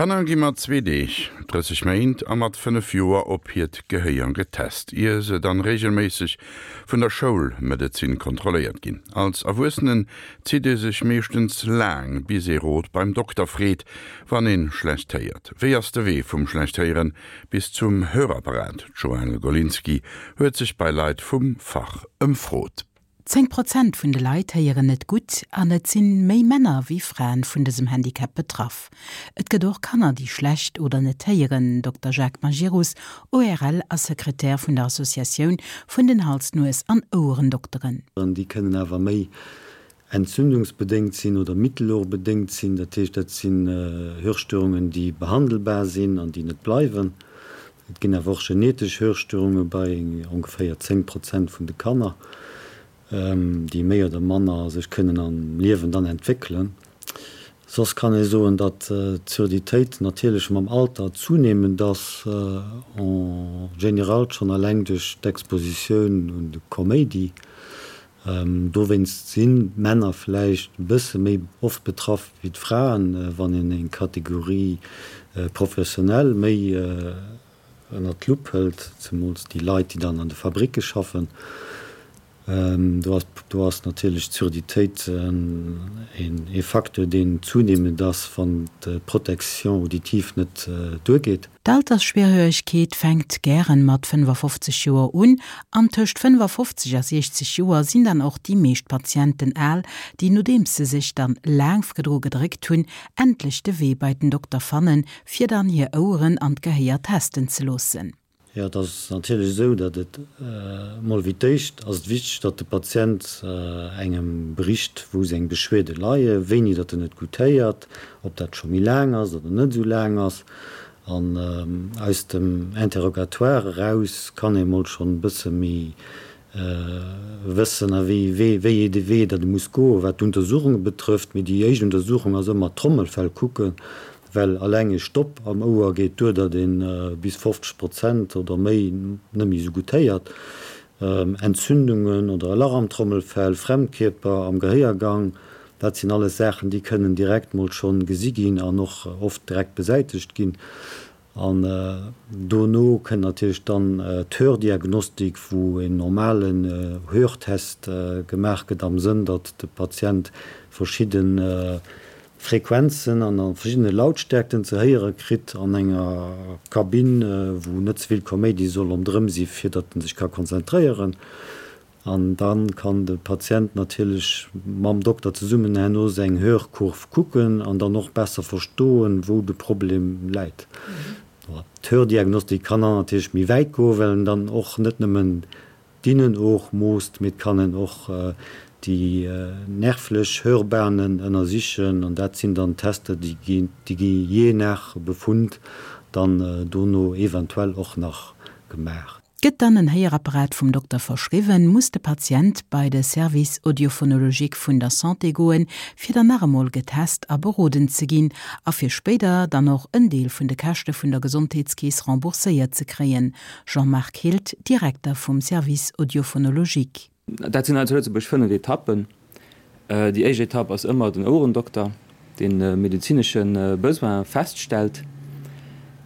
Kanner gi mat zwee Deeg, 30 Méint a mat 5 Joer op hiert Gehéier getest, ier se dann reegelméisseg vun der Schoulmedezin kontrolléiert ginn. Als Erwuessenen zitt ee sech meeschtens laang, bis ee Rot beim Dokter freet, wann ee schlecht héiert. Wéi ass de Wee vum schlecht héieren bis zum Hörapparat? D'Joëlle Golinski huet sech bei Leit vum Fach ëmfrot. 10 Prozent vun de Leit héieren net gutt an et sinn méi Männer wéi Fraen vun dësem Handicap betraff. Et gëtt och Kanner, déi schlecht oder net héieren, Dokter Jacques Majerus, ORL a Sekretär vun der Associatioun vun den Hals-, Nues an Ouerendokteren. Déi kënnen awer méi entzündungsbedéngt sinn oder mittelohrbedéngt sinn. Dat heescht, dat sinn Hörstörungen, déi behandelbar sinn an déi net bleiwen. Et ginn awer och genetesch Hörstörunge bei ongeféier 10 Prozent vun de Kanner, déi méi oder manner sech kënnen am Liewen dann entwéckelen. Soss kann ee soen, datt d'Surditéit natierlech mam Alter zunehmend ass, en général schonn eleng duerch d'Expositioun un de Koméidi. Dowéinst sinn d'Männer vläicht e bësse méi oft betraff wéi d'Fraen, wann een eng Kategorie professionnel méi ënnert d'Lupp hëlt, zemools déi Leit, déi dann an de Fabricke schaffen. Do ass do ass natierlech d'Surditéit ee Facteur, deen zunehmend ass, wann d'Protection auditive net duergeet. D'Altersschwerhöregkeet fänkt gären mat 55 Joer un an tëscht 55 a 60 Joer sinn dann och déi meescht Patienten al, déi nodeems se sech dann laang vrdru gedréckt hunn, endlech de Wee bei den Dokter fannen, fir dann hir Oueren an d'Gehéier testen ze loossen. Jo, et ass natierlech esou, datt et emol wéi d'éischt ass et wichteg, datt de Patient engem bericht, wou seng Beschwierde leien, wéini datt en net gutt héiert, ob dat scho méi laang ass oder net esou laang ass. An aus dem Interrogatoire eraus kann ee mol schonn e bësse méi wëssen, a wéi wéi ee Wee datt e muss goen, wat d'Untersuchunge betrëfft. Mee déi éischt Untersuchung ass ëmmer d'Trommelfell kucken, well alleng e Stopp am Ouer geet duer, datt ee bis 50 Prozent oder méi net méi esou gutt héiert. Entzündungen oder e Lach am Trommelfell, Fremdkierper am Gehéiergang, dat sinn alles Saachen, déi kënnen direkt mol schonn gesi ginn an och oft direkt besäitegt ginn. An dono kënnt natierlech dann d'Hördiagnostik, wou en normalen Hörtest gemaach gëtt am Sënn, datt de Patient verschidde Frequenzen an a verschiddene Lautstärkten ze héiere kritt an enger Kabinn, wou net ze vill Koméidi soll ronderëm si fir datt en sech ka konzentréieren. An da kann de Patient natierlech mam Dokter zesummen herno seng Hörkurv kucken an dann och besser verstoen, wou de Problem läit. D'Hördiagnostik kann dann natierlech méi wäit goen, well en dann och net nëmmen D'Innenoog moosst, mee et kann een och déi nervlech Hörbahnen ënnersichen an dat sinn dann Tester, déi gi jee nach Befund dann dono eventuell och nach gemaach. Gëtt dann en Héierapparat vum Dokter verschriwwen, muss de Patient bei de Service audiophonologique vun der Santé goen, fir dann nach emol getest a beroden ze ginn a fir spéider dann och en Deel vun de Käschte vun der Gesondheetskeess rembourséiert ze kréien. Jean-Marc Hild, Direkter vum Service audiophonologique. Dat sinn hei zu Lëtzebuerg 5 Etappen. Déi éischt Etapp ass ëmmer den Ouerendokter, deen e medezinesche Besoin feststellt.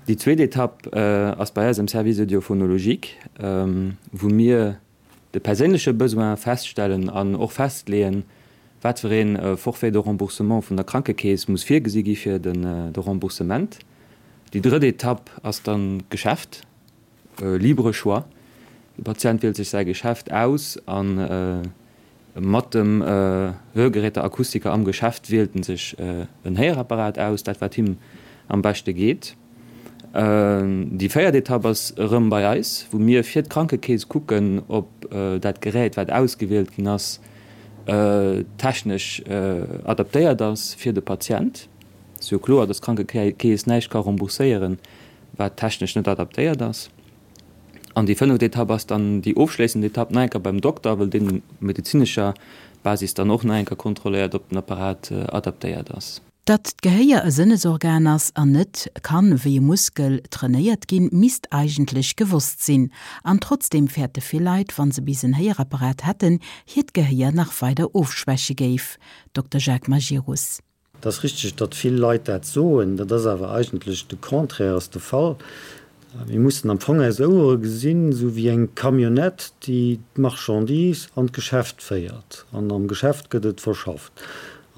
Déi zweet Etapp ass bei eis am Service audiophonologique, wou mir de perséinleche Besoin feststellen an och festleeën, wat fir ee Forfait de remboursement vun der Krankekeess muss virgesi gi fir de Remboursement. Déi drëtt Etapp ass dann d'Geschäft, libre choix. De Patient wielt sech säi Geschäft aus a mat dem Hörgeräteakustiker am Geschäft wielt en sech en Héierapparat aus, dat wat him am beschte geet. Déi véiert Etapp ass erëm bei eis, wou mir fir d'Krankekeess kucken, ob dat Gerät, wat ausgewielt ginn ass, technesch adaptéiert ass fir de Patient. Et ass jo kloer, dass d'Krankekeess näischt ka rembourséieren, wat technesch net adaptéiert ass. An déi fënneft Etapp ass dann déi ofschléissend Etapp, nach eng Kéier beim Dokter, well deen op medezinescher Basis dann och nach eng Kéier kontrolléiert, ob den Apparat adaptéiert ass. Datt d'Gehéier e Sënnesorgan ass an net kann wéi e Muskel trainéiert ginn, misst eigentlech gewosst sinn. An trotzdeem fäerte vill Leit, wann se bis en Héierapparat hätten, hiert Gehéier nach weider ofschwäche géif. Dokter Jacques Majerus. Et ass richteg, datt vill Leit dat soen. Dat ass awer eigentlech de Contraire ass de Fall. Mir mussen am Fong eis Ouere gesinn, esou wéi eng Camionnette, déi d'Marchandise an d'Geschäft féiert. An am Geschäft gëtt et verschafft.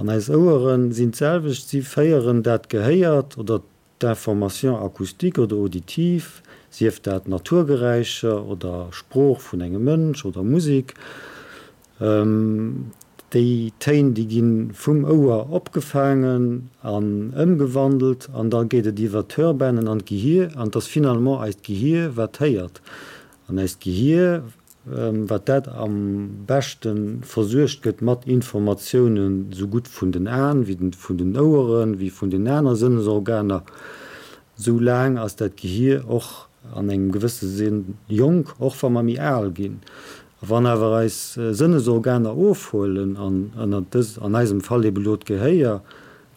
An eis Ouere sinn d'selwecht, si féieren dat Gehéiert oder D'information acoustique oder auditive, sief dat Naturgeräischer oder Sprooch vun engem Mënsch oder Musek, déi Téin, déi gi vum Ouer opgefaangen an ëmgewandelt an da geet et iwwer d'Hörbanen an d'Gehier an et ass finalement eist Gehier, wat héiert. An eist Gehier wat dat am beschte versuergt gëtt mat Informatiounen, esou gutt vun den Aen, wéi vun den Oueren, wéi vun den aner Sënnesorganer, esou laang ass dat Gehier och an engem gewësse Sënn jonk, och wa mer méi al ginn. A wann awer eis Sënnesorganer ofhuelen, an ënnert dës, an eisem Fall ebe lo d'Gehéier,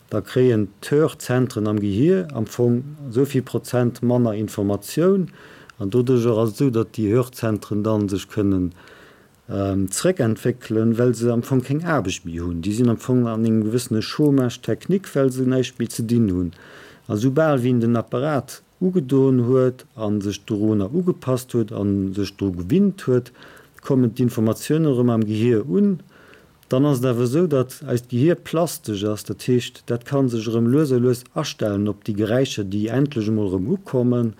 Da kréien d'Hörzentren am Gehier am Fong esou vill Prozent manner Informatioun. An doduercher ass et esou, datt déi Hörzentren da sech kënnen zréckentwéckelen, well se am Fong keng Aarbecht méi hunn. Déi sinn am Fong an engem gewëssene Chômage technique, well se näischt méi ze dinn hunn. A soubal wéi een den Apparat ugedoen huet a sech dorunner ugepasst huet a sech dru gewinnt huet, kommen d'Informatiounen erëm am Gehier un. Dann ass et awer esou, datt eist Gehier plastesch ass, dat heescht, dat ka sech erëm lues a lues astellen op déi Geräischer, déi endlech emol erëm ukommen.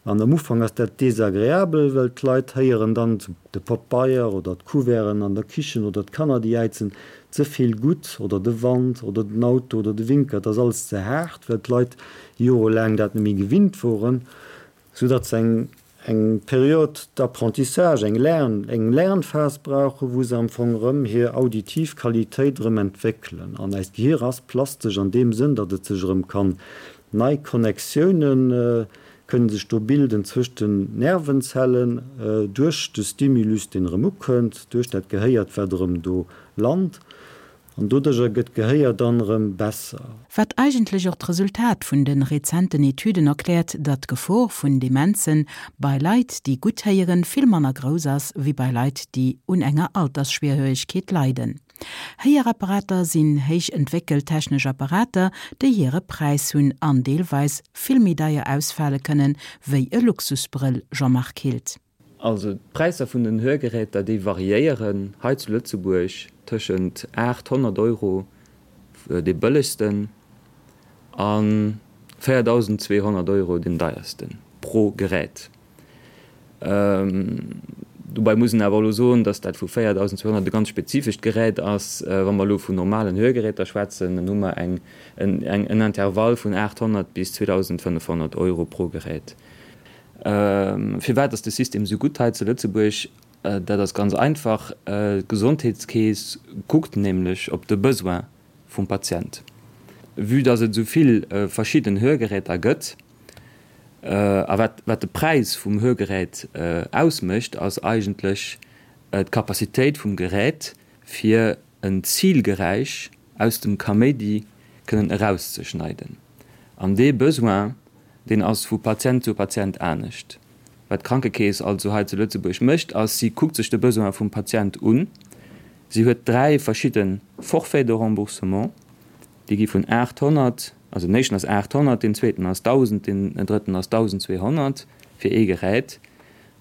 An am Ufank ass dat desagreabel, well d'Leit héieren dann de Pabeier oder d'Couverten an der Kichen oder d'Kanner, déi jäizen, ze vill gutt oder de Wand oder den Auto oder de Winker, et ass alles ze haart, well d'Leit jorelaang dat net méi gewinnt woren, soudatt se eng eng Période d'apprentissage, eng Lern, eng Lernphas brauchen, wou se am Fong erëm hir auditiv Qualitéit erëm entwéckelen. An eist Gehir ass plastesch an deem Sënn, datt et sech erëm kann nei Connectiounen kënnen sech do bilden zwëscht den Nervenzellen duerch de Stimulus, deen erëm ukënnt, duerch dat Gehéiert, wat erëm do lant. An doduercher gëtt d'Gehéier dann erëm besser. Wat eigentlech och d'Resultat vun de rezenten Etüden erkläert, datt d'Gefor vun Demenzen bei Leit, déi gutt héieren, vill manner grouss ass, wéi bei Leit, déi un enger Altersschwierhöregkeet leiden. Héierapparater sinn héich entwéckelt technesch Apparater, déi hire Präis hunn an deelweis vill méi deier ausfale kënnen, wéi e Luxusbrëll, Jean-Marc Hild. Also d'Präisser vun den Hörgeräter, déi variéieren hei zu Lëtzebuerg tëschent 800 Euro, dee bëllegsten, a 4.200 Euro, deen deiersten, pro Gerät. Dobäi muss een awer elo soen, datt dat vu 4.200 e ganz spezifescht Gerät ass. Wa mer elo vun normalen Hörgeräter schwätzen, dann hu mer eng en Intervall vun 800 bis 2.500 Euro pro Gerät. Firwat ass de System esou gutt hei zu Lëtzebuerg? Dat ass ganz einfach, D'Gesondheetskeess kuckt nämlech op de Besoin vum Patient. Vue dass et esou vill verschidden Hörgeräter gëtt, a wat wat de Präis vum Hörgerät ausmécht, ass eigentlech d'Capacitéit vum Gerät, fir en Zilgeräisch aus dem Kaméidi kënnen erauszeschneiden. An dee Besoin, deen ass vu Patient zu Patient anescht. Wat d'Krankekeess also hei zu Lëtzebuerg mécht, ass, si kuckt sech de Besoin vum Patient un. Si huet 3 verschidde Forfaits de remboursement, déi gi vun 800, also den éischten ass 800, deen zweeten ass 1.000, deen drëtten ass 1.200 fir ee Gerät.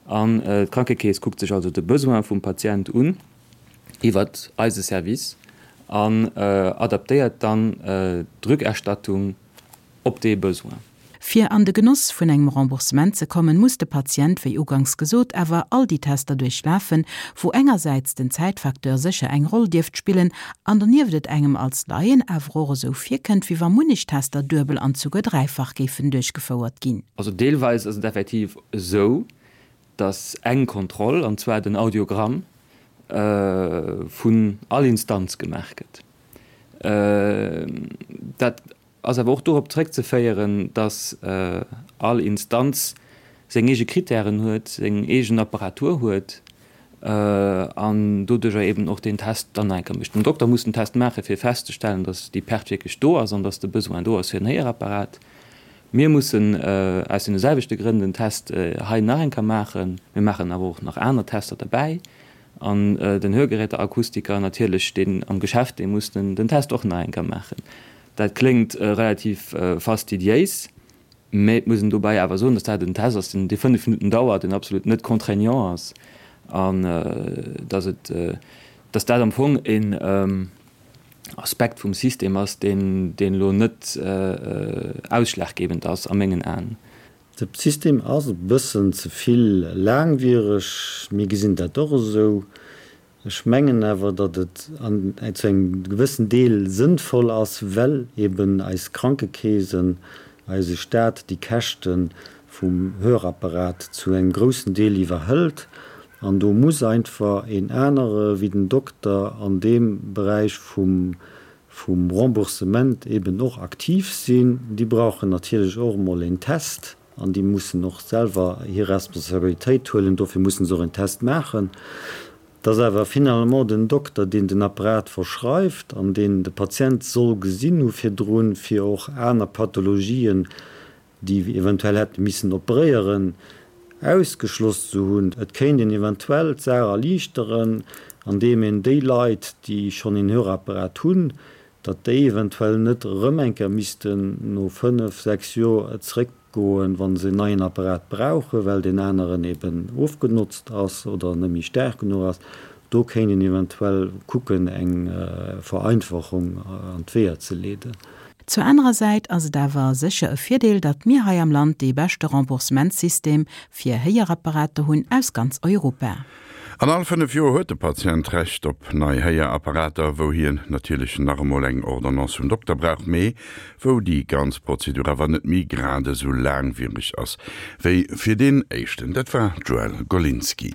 An d'Krankekeess kuckt sech also de Besoin vum Patient un iwwert eise Service an adaptéiert dann d'Rückerstattung op dee Besoin. Fir an de Genoss vun engem Remboursement ze kommen, muss de Patient, wéi uganks gesot, awer all déi Tester duerchlafen, wou engersäits den Zäitfacteur sécher eng Roll dierft spillen an donieft et engem als Laien awer och esou virkënnt, wéi wa munnech Tester duebel an souguer dräifach géifen duerchgefouert ginn. Also deelweis ass et effektiv esou, dass eng Kontroll, an zwar den Audiogramm, vun all Instanz gemaach gëtt. Dat ass awer och dorop zréckzeféieren, dass all Instanz seng eege Kritären huet, seng eegen Apparatur huet an doduerjer eben och deen Test dann nach eng Kéier mécht. Den Dokter muss den Test maachen, fir festzestellen, dass déi Perte wierklech do ass an dass de Besoin do ass fir en Héierapparat. Mir mussen aus deene selwechte Grënn den Test hei nach eng Kéier maachen. Mir maachen awer och nach aner Tester derbäi. An den Hörgeräteakustiker natierlech, deen am Geschäft, dee muss den Test och nach eng Kéier maachen. Dat kléngt relativ fastidiéis, mä et muss een dobäi awer soen, dass dat en Test ass, deen 5 Minutten dauert, deen absolut net contraignant ass an dass et, dass dat am Fong een Aspekt vum System ass, deen elo net ausschlaggebend ass a mengen Aen. De System ass e bëssen ze vill laangwiereg, mir gesinn dat och esou. Ech mengen awer, datt et an zu engem gewëssen Deel sënnvoll ass, well eben eis Krankekeesen, eise Staat déi Käschte vum Hörapparat zu engem groussen Deel iwwerhëlt. An do muss einfach een anere wéi den Dokter an deem Beräich vum vum Remboursement eben och aktiv sinn. Déi brauchen natierlech och emol een Test an déi mussen och selwer hir Responsabilitéit huelen. Dofir mussen se och een Test maachen. Et ass awer finalement den Dokter, deen den Apparat verschreift an deen de Patient soll gesinn hu virdrun, fir och aner Pathologien déi eventuell hätte missen operéieren, ausgeschloss ze hunn. Et kéint een eventuell d'Saach erliichteren, andeem een déi Leit, déi schonn een Hörapparat hunn, datt déi eventuell net erëm eng Kéier missten no fënnef, sechs Joer zeréckgoen, wa se en neien Apparat brauchen, well deen aneren eben ofgenotzt ass oder net méi staark genuch ass. Do kéint een eventuell kucken, eng Vereinfachung an d'Weeër ze leeden. Zur anerer Säit ass et awer sécher e Virdeel, datt mir hei am Land dee beschte Remboursementssystem fir Héierapparater hunn aus ganz Europa. An all 5 Joer huet de Patient Recht op nei Héierapparater, wou hien natierlech nach emol eng Ordonnance vum Dokter brauch, mee wou déi ganz Prozedur awer net méi grad esou laangwiereg ass wéi fir deen éischten. Dat war d'Joëlle Golinski.